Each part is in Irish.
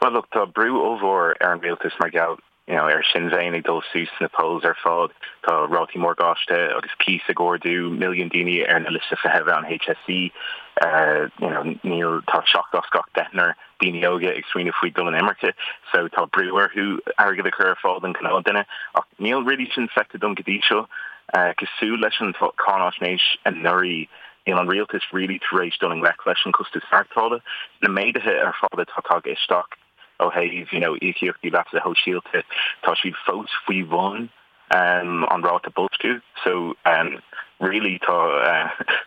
Well look, tá brú ollmhór ar an rialtas mar gheall you know, ar Sinn Féin ag dul suas sna polls ar fad, tá rátaí morgáiste agus cíos ag ardú, milliún daoine ar na liosta feithimh an HSE, you know, níl, tá seacht as gach deichniúr daoine óga ag smaoineamh faoi dul in imirce, so tá brú orthu airgead a chur ar fáil don ghnáthduine, ach níl really sin feicthe dom go dtí seo. Cosúil leis an cáinaisnéis anuraidh, níl an rialtas really tar éis dul i ngleic leis an costas maireachtála. Na méaduithe ar fad atá tagtha isteach ó thaobh you know íocaíochtaí leasa shóisialta, tá siad fós faoi bhun an ráta boilsciú. So really tá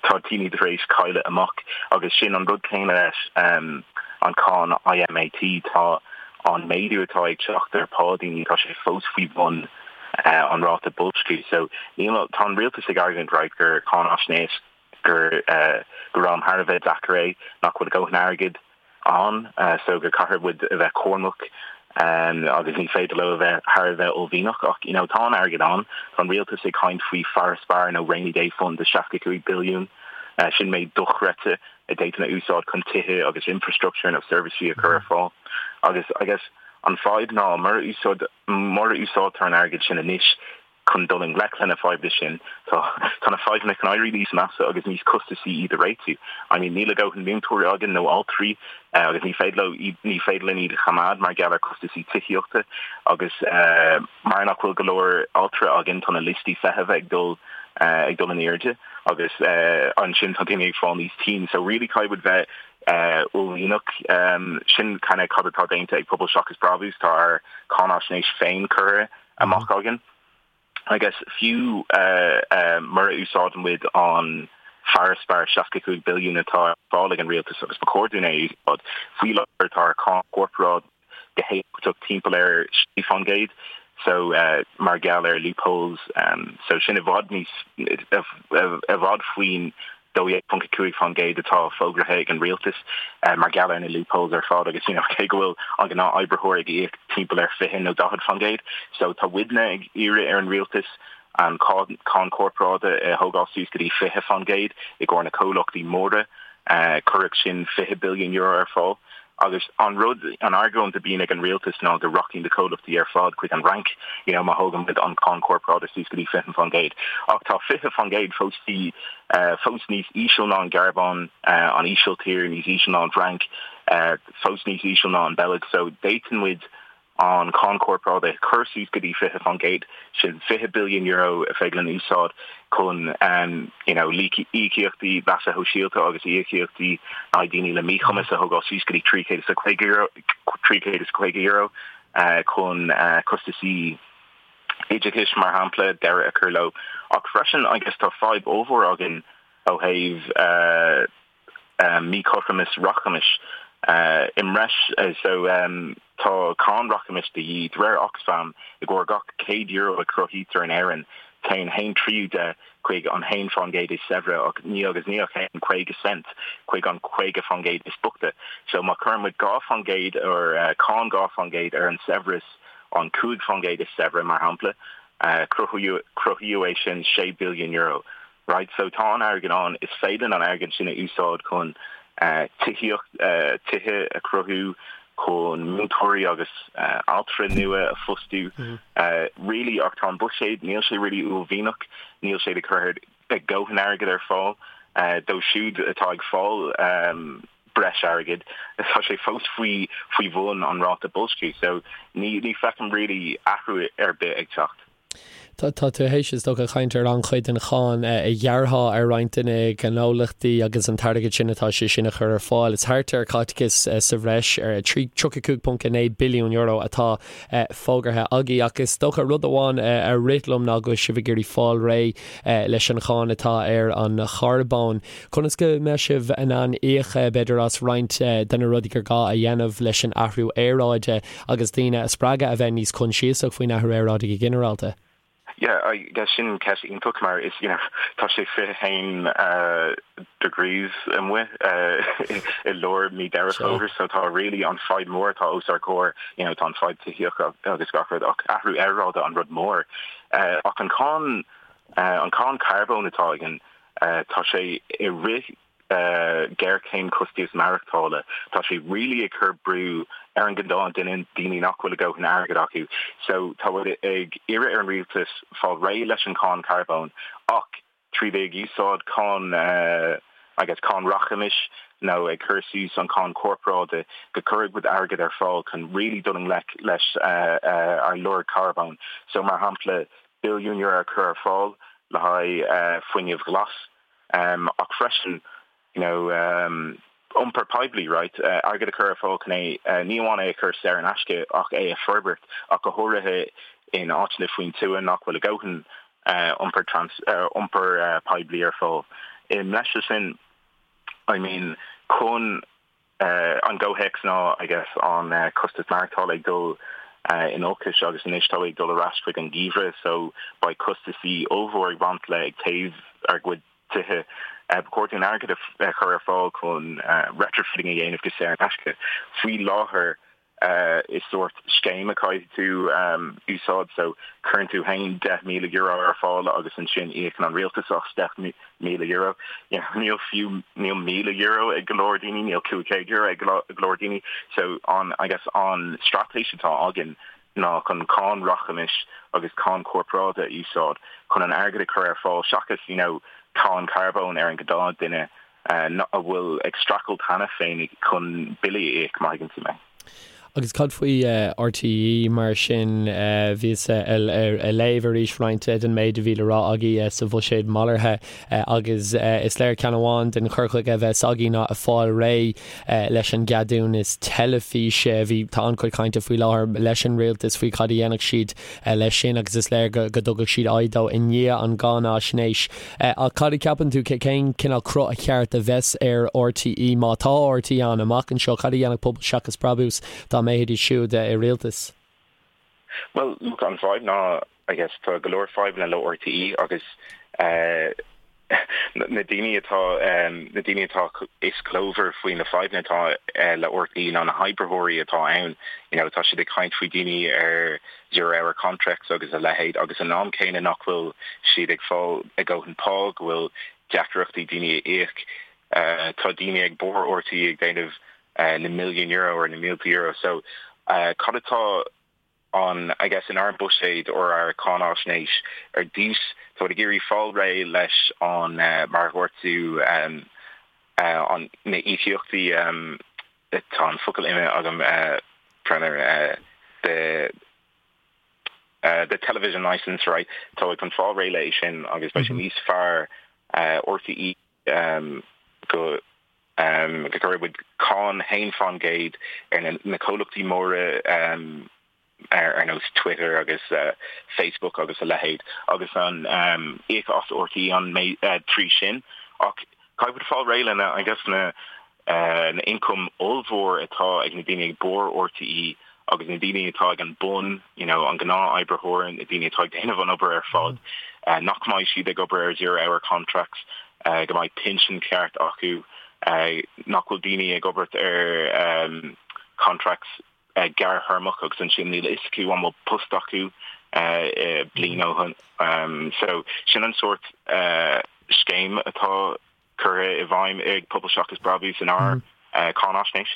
tá daoine tar éis cailleadh amach agus sin an rud céanna leis an cáin ÍMAT, tá an méadú atá ag teacht ar pá daoine, tá sé fós faoi bhun an ráta boilsciú. So níl, tá an rialtas ag argóint right gur cáinaisnéis gur gur am thar a bheith deacair é, nach bhfuil a dhóthain airgid ann so gur caithfidh muid a bheith cúramach agus ní féidir leo a bheith thar a bheith uaillmhianach ach you know tá an airgead ann. Tá an rialtas ag caint faoi farasbarr nó rainy day fund de 65 billiún, sin méid dochreidte a d'fhéadfainn a úsáid chun tithe agus infrastructure nó seirbhísí a chur ar fáil agus I guess an fadhb ná mura úsáid mura úsáidtear an airgead sin anois chun dul i ngleic le na fadhbanna sin, tá tá na fadhbanna chun éirí níos measa agus níos costasaí iad a réitiú. I mean níl a dhóthain múinteoirí againn nó altraí agus ní féidir leo iad ní féidir linn iad a choimeád mar gheall ar costasaí tithíochta agus mar nach bhfuil go leor altra againn tá na liostaí feithimh ag dul ag dul in airde agus ansin tá daoine ag fáil níos tinn. So really caithfidh muid bheith uaillmhianach. Sin kind of cad atá déanta ag Pobal Seachas Brabús, tá ár cáinaisnéis féin curtha amach againn. I guess fiú mura úsáideann muid an farasbarr 65 billiún atá ar fáil ag an rialtas agus ba chóir dúinn é a úsáid, faoi láthair tá ár cáin chorparáide go héifeachtach timpeall ar 6% so mar gheall ar loopholes so sin i bhfad níos i bhfad faoin 12.5% atá fógraithe ag an rialtas mar gheall ar na loopholes ar fad agus you know cé go bhfuil an gnáth-oibritheoir ag íoc timpeall ar 20 nó 40% so tá muidne ag iarraidh ar an rialtas an cáin chorparáide a thógáil suas go dtí 20% i gcomhair na comhlachtaí móra. Chuirfeadh sin €20 billiún ar fáil. Agus an rud, an argóint a bíonn ag an rialtas ná go rachaidh na comhlachtaí ar fad chuig an Fhrainc, you know, má thógann muid an cáin chorparáide suas go dtí 20%. Ach tá 20% fós, fós níos íseal ná an Ghearmáin, an Ísiltír, níos íseal ná an Fhrainc, fós níos íseal ná an Bheilg. So d'fhéadfadh muid an cháin chorparáide a chur suas go dtí 20%, sin €20 billiún a féidir linn úsáid chun you know íocaíochtaí leasa shóisialta agus íocaíochtaí le haghaidh daoine le míchumas a thógáil suas go dtí €350, €350 chun costasaí oideachais, mar shampla, deireadh a chur leo. Ach freisin, I guess tá fadhb ollmhór againn ó thaobh míchothromas rachmais i mbreis so tá cáin rachmais de dhíth. De réir Oxfam, i gcomhair gach €100 a chruthaítear in Éirinn, téann haon tríú de chuig an 1% is saibhre ach ní agus ní ach aon 50 cent chuig an 50% is boichte. So má chuireann muid 2% ar cáin 2% ar an saibhreas an 5% is saibhre, mar shampla, cruthaíodh é sin €6 billiún. Right, so tá an airgead ann, is féidir linn an airgead sin a úsáid chun tithíocht, tithe a chruthú, chun múinteoirí agus altra nua a phostú, really, ach tá an buiséad, níl sé really uaillmhianach, níl sé ag cur a dhóthain airgid ar fáil dóibh siúd atá ag fáil breis airgid, tá sé fós faoi faoi bhun an ráta boilsciú, so ní ní feicim really athrú ar bith ag teacht. Tá tú théis, is dócha, caint ar an-chuid den cháin a ghearrfá ar roinnt de na gnólachtaí agus an t-airgead sin atá sé sin a chur ar fáil. Is thart ar caiteachas sa bhreis ar €35.9 billiún atá fógartha agaibh. Ach is dócha rud amháin a rith liom ná go bhfuil sibh ag iarraidh fáil réidh leis an cháin atá ar an charbón. Conas go mbeidh sibh in ann íoc, b'fhéidir, as roinnt de na rudaí gur gá a dhéanamh leis an athrú aeráide? agus daoine a spreagadh a bheith níos coinsiasach faoin athrú aeráide go ginearálta? Yeah, I guess sin ceist iontach mar is, you know, tá sé 21 degrees amuigh i lár mí Deireadh Fómhair so tá really an fadhb mór atá os ár gcomhair, you know, tá an fadhb tithíochta agus gach rud ach athrú aeráide an rud mór. Ach an cáin, an cáin carbóin atá againn, tá sé i rith. Géarchéim costas maireachtála, tá sé really ag cur brú ar an gnáth duine, daoine nach bhfuil a dhóthain airgead acu. So tá muid ag iarraidh ar an rialtas fáil réidh leis an cháin carbóin ach trí bheith ag úsáid cáin I guess cáin rachmais nó ag cur suas an cáin corparáide go cuirfidh muid airgead ar fáil chun really dul i ngleic leis ár lorg carbóin. So mar shampla billiún euro a chur ar fáil le haghaidh fuinneamh ghlas. Ach freisin, you know, iompar poiblí, right, airgead a chur ar fáil chun é, ní amháin é a chur saor in aisce ach é a forbairt, ach go háirithe in áiteanna faoin tuath nach bhfuil a dhóthain iompar trans, iompar poiblí ar fáil. I mbreis air sin, I mean, chun an gcomhthéacs ná, I guess, an costas maireachtála ag dul in olcais agus anois tá ag dul ar ais chuig an geimhreadh so beidh costasaí ollmhór ag baint le ag téamh ár gcuid tithe. Ba chóir dúinn airgead a chur ar fáil chun retrofitting a dhéanamh go saor in aisce. Faoi láthair is sórt scéim a caithfidh tú úsáid so cuireann tú féin €10,000 ar fáil agus ansin íocann an rialtas as €10,000. Níl fiú níl €1,000 ag go leor daoine, níl €500 ag go leor daoine. So an I guess an straitéis atá againn ná chun cáin rachmais agus cáin corparáide a úsáid chun an airgead a chur ar fáil seachas you know cáin carbóin ar an gnáth duine a bhfuil ag streachailt cheana féin chun billí a íoc, má thuigeann tú mé. Agus cad faoi RTÉ mar sin? Bhíos ag léamh arís roinnt den méid a bhí le rá agaibh sa bhuiséad malartha agus is léir ceann amháin den chur chuige a bheas agaibh ná fáil réidh leis an gceadúnas teilifíse. Bhí, tá an-chuid cainte faoi láthair leis an rialtas faoi cad a dhéanfadh siad leis sin agus is léir go dtugfadh siad aghaidh dó i ndiaidh an gcáinaisnéis. Ach cad a cheapann tú, cén cineál cruth a cheart a bheas ar RTÉ, má tá RTÉ ann amach anseo, cad a dhéanfadh Pobal Seachas Brabús dá mbeidís siúd i rialtas? Bhuel, look, an fadhb ná, I guess, tá go leor fadhbanna le RTÉ agus eh, na daoine atá na daoine atá is glórmhaire faoi na fadhbanna atá le RTÉ ná na hoibritheoirí atá ann. You know, tá siad ag caint faoi daoine ar zero hour contracts agus a leithéid agus an am céanna nach bhfuil siad ag fáil a ndóthain pá, go bhfuil deacrachtaí daoine a íoc. Tá daoine ag barr RTÉ ag déanamh na milliún euro or na mílte euro. So cad atá an, I guess, inár mbuiséad or ár cáináisnéis ar dtús, tá muid ag iarraidh fáil réidh leis an, mar a dhúirt tú, an, na íocaíochtaí, tá an focal imithe agam, the, the television licence, right, tá muid chun fáil réidh léi sin agus beidh sé níos fearr RTÉ go go gcuirfidh muid cáin 1% ar na comhlachtaí móra ar nós Twitter agus Facebook agus a leithéid agus an íoc as RTÉ an trí sin. Ach caithfidh muid fáil réidh lena, I guess, na na ioncaim ollmhór atá ag na daoine ag barr RTÉ agus na daoine atá ag an bun, you know, an gnáth-oibritheoir, na daoine atá ag déanamh an obair ar fad, nach mbeidh siad ag obair ar zero hour contracts, go mbeidh pinsean ceart acu, nach bhfuil daoine ag obair ar contracts gearrthéarmach agus ansin níl a fhios acu an bhfuil post acu bliain ó shin. So sin an sórt scéim atá curtha i bhfeidhm ag Pobal Seachas Brabús inár cáináisnéis.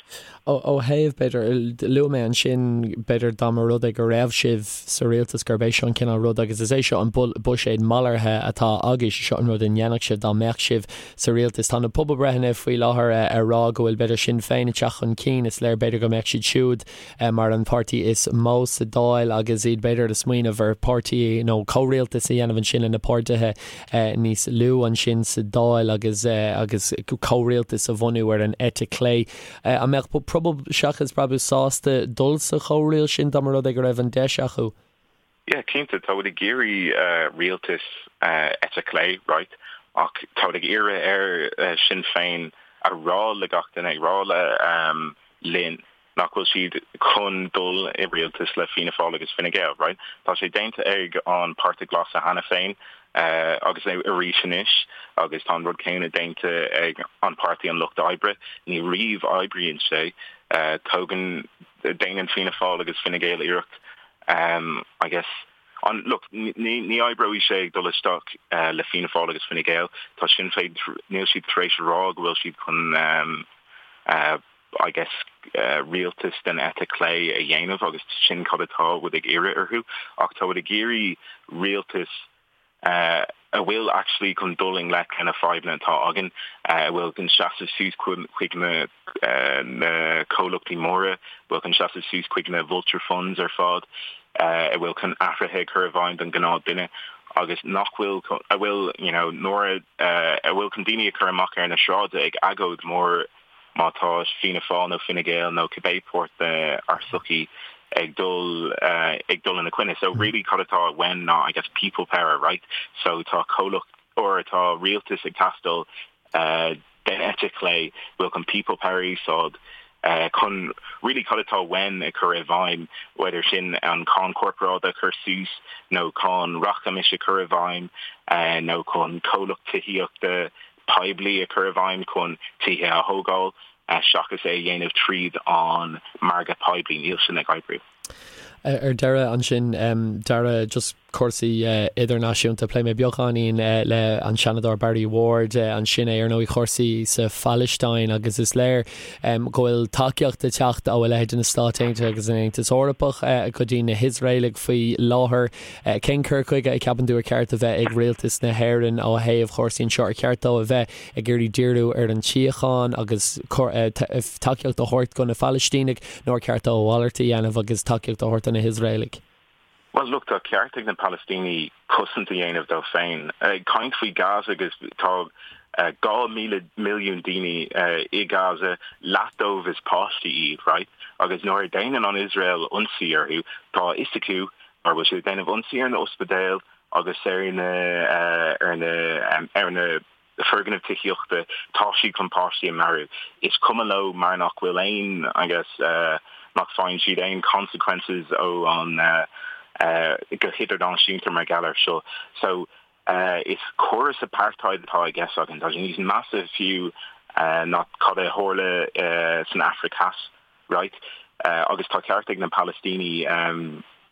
Ó thaobh, b'fhéidir, luaigh mé ansin, b'fhéidir dá mba rud é go raibh sibh sa rialtas gurb é seo an cineál rud agus is é seo an buiséad malartha atá agaibh, seo an rud a ndéanfadh sibh dá mbeadh sibh sa rialtas. Tá na pobalbreitheanna faoi láthair ag rá go bhfuil b'fhéidir Sinn Féin ag teacht chun cinn, is léir b'fhéidir go mbeadh siad siúd mar an páirtí is mó sa Dáil agus iad b'fhéidir ag smaoineamh ar páirtí nó comhrialtas a dhéanamh ansin le na páirtithe níos lú ansin sa Dáil agus agus comhrialtas a bhunú ar an eite clé. An mbeadh Pobal Seachas Brabús sásta dul sa chomhrialtas sin dá mba rud é go raibh an deis acu? Yeah, cinnte, tá muid ag iarraidh rialtas eite chlé, right, ach tá muid ag iarraidh ar Sinn Féin a rá le gach duine, ag rá le linn nach bhfuil siad chun dul i rialtas le Fianna Fáil agus Fine Gael, right? Tá sé déanta ag an Páirtí Glas cheana féin agus arís anois agus tá an rud céanna déanta ag an Páirtí an Lucht Oibre. Ní riamh oibríonn sé. Tógann, déanann Fianna Fáil agus Fine Gael iarracht, I guess, An, look, ní, ní oibreoidh sé ag dul isteach le Fianna Fáil agus Fine Gael. Tá Sinn Féin, níl siad tar éis a rá go bhfuil siad chun, I guess, rialtas den eite chlé a dhéanamh agus sin cad atá muid ag iarraidh orthu. Ach tá muid ag iarraidh rialtas a bhfuil actually chun dul i ngleic le na fadhbanna atá againn, a bhfuil chun seasamh suas chuig na comhlachtaí móra, a bhfuil chun seasamh suas chuig na vulture funds ar fad, a bhfuil chun athruithe a chur i bhfeidhm don ghnáth duine agus nach bhfuil, a bhfuil, you know, nuair a, a bhfuil chun daoine a chur amach ar na sráide ag agóid mór má tá Fianna Fáil nó Fine Gael nó cibé páirt dár sochaí ag dul ag dul ina coinne. So really cad atá uainn ná I guess people power, right? So tá comhlacht or tá rialtas ag teastáil den eite chlé bhfuil chun people power a úsáid chun really cad atá uainn a chur i bhfeidhm, whether sin an cáin corparáide a chur suas nó cáin rachmais a chur i bhfeidhm nó chun comhlacht tithíochta poiblí a chur i bhfeidhm chun tithe a thógáil seachas é a dhéanamh tríd an margadh poiblí. Níl sin ag oibriú. Ar deireadh ansin, Dara, just cúrsaí idirnáisiúnta, phléigh mé beagáinín le an Seanadóir Barry Ward ansin é ar ndóigh cúrsaí sa Phalaistín agus is léir go bhfuil tacaíocht ag teacht ó a leithéid de na Stáit Aontaithe agus an Aontas Eorpach go dtí na hIosraelaigh faoi láthair. Cén cur chuige a cheapann tú ar cheart a bheith ag rialtas na hÉireann ó thaobh chúrsaí anseo? Ar cheart dó a bheith ag iarraidh díriú ar an tsíocháin agus tacaíocht a thabhairt do na Palaistínigh nó ar cheart dó a mhalairt a dhéanamh agus tacaíocht a thabhairt do na hIosraelaigh? Bhuel, look, tá ceart ag na Palaistínigh cosaint a dhéanamh dóibh féin. Ag caint faoi Gaza agus tá 2,000 milliún daoine i Gaza, leath dóibh is páistí iad, right? Agus nuair a déanann an Iosrael ionsaí orthu, tá a fhios acu Mar bhfuil siad ag déanamh ionsaí ar na ospidéil agus ar na ar na ar na foirgnimh tithíochta, tá siad chun páistí a mharú. Is cuma leo mar nach bhfuil aon, I guess, nach bhfaigheann siad aon consequences ó an go hidirnáisiúnta mar gheall air seo. So, is córas apartheid atá i gceist againn. Tá sé níos measa fiú ná cad a tharla san Afraic Theas. right? Agus tá ceart ag na Palaistínigh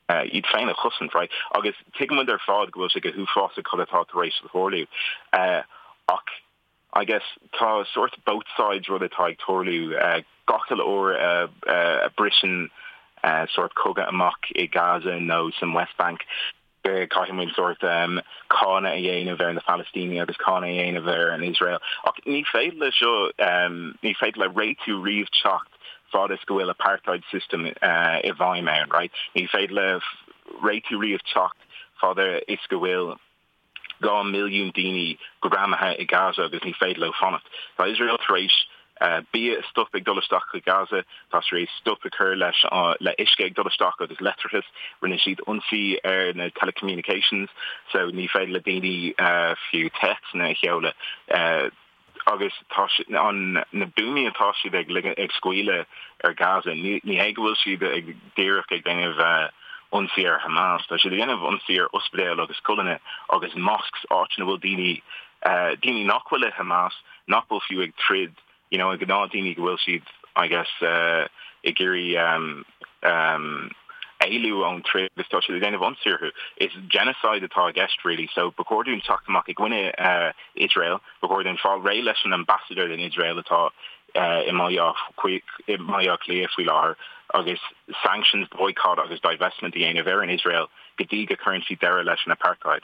iad féin a chosaint, right? Agus tuigimid ar fad go bhfuil sé go huafásach cad atá tar éis tarlú. Ach I guess tá sort both sides rud atá ag tarlú gach uile uair a briseann sort cogadh amach i Gaza nó san West Bank. Caithfidh muid sórt cáineadh a dhéanamh ar na Palaistínigh agus cáineadh a dhéanamh ar an Iosrael. Ach ní féidir le seo, ní féidir le réitiú riamh teacht fad is go bhfuil apartheid system i bhfeidhm ann, right? Ní féidir le réitiú riamh teacht fad is go bhfuil 2 milliún daoine greamaithe i Gaza agus ní féidir leo fanacht. Tá Iosrael tar éis bia a stop ag dul isteach chuig Gaza, tá tar éis stop a chur leis le uisce ag dul isteach agus leictreachas. Rinne siad ionsaí ar na telecommunications so ní féidir le daoine fiú téacsanna a sheoladh. Agus tá an na buamaí atá siad ag ag scaoileadh ar Gaza, ní hé go bhfuil siad ag díreach ag déanamh ionsaí ar Hamas, tá siad ag déanamh ionsaí ar ospidéil agus scoileanna agus mosques, áit ina bhfuil daoine daoine nach bhfuil i Hamas, nach bhfuil fiú ag troid, you know, gnáth daoine go bhfuil siad, I guess, ag iarraidh éalú ón troid agus tá siad ag déanamh ionsaí orthu. Is genocide atá i gceist really, so ba chóir dúinn teacht amach i gcoinne Iosrael, ba chóir dúinn fáil réidh leis an ambassador den Iosrael atá i mBaile Átha Cliath faoi láthair agus sanctions, boycott agus divestment a dhéanamh ar an Iosrael go dtí go cuireann siad deireadh leis an apartheid.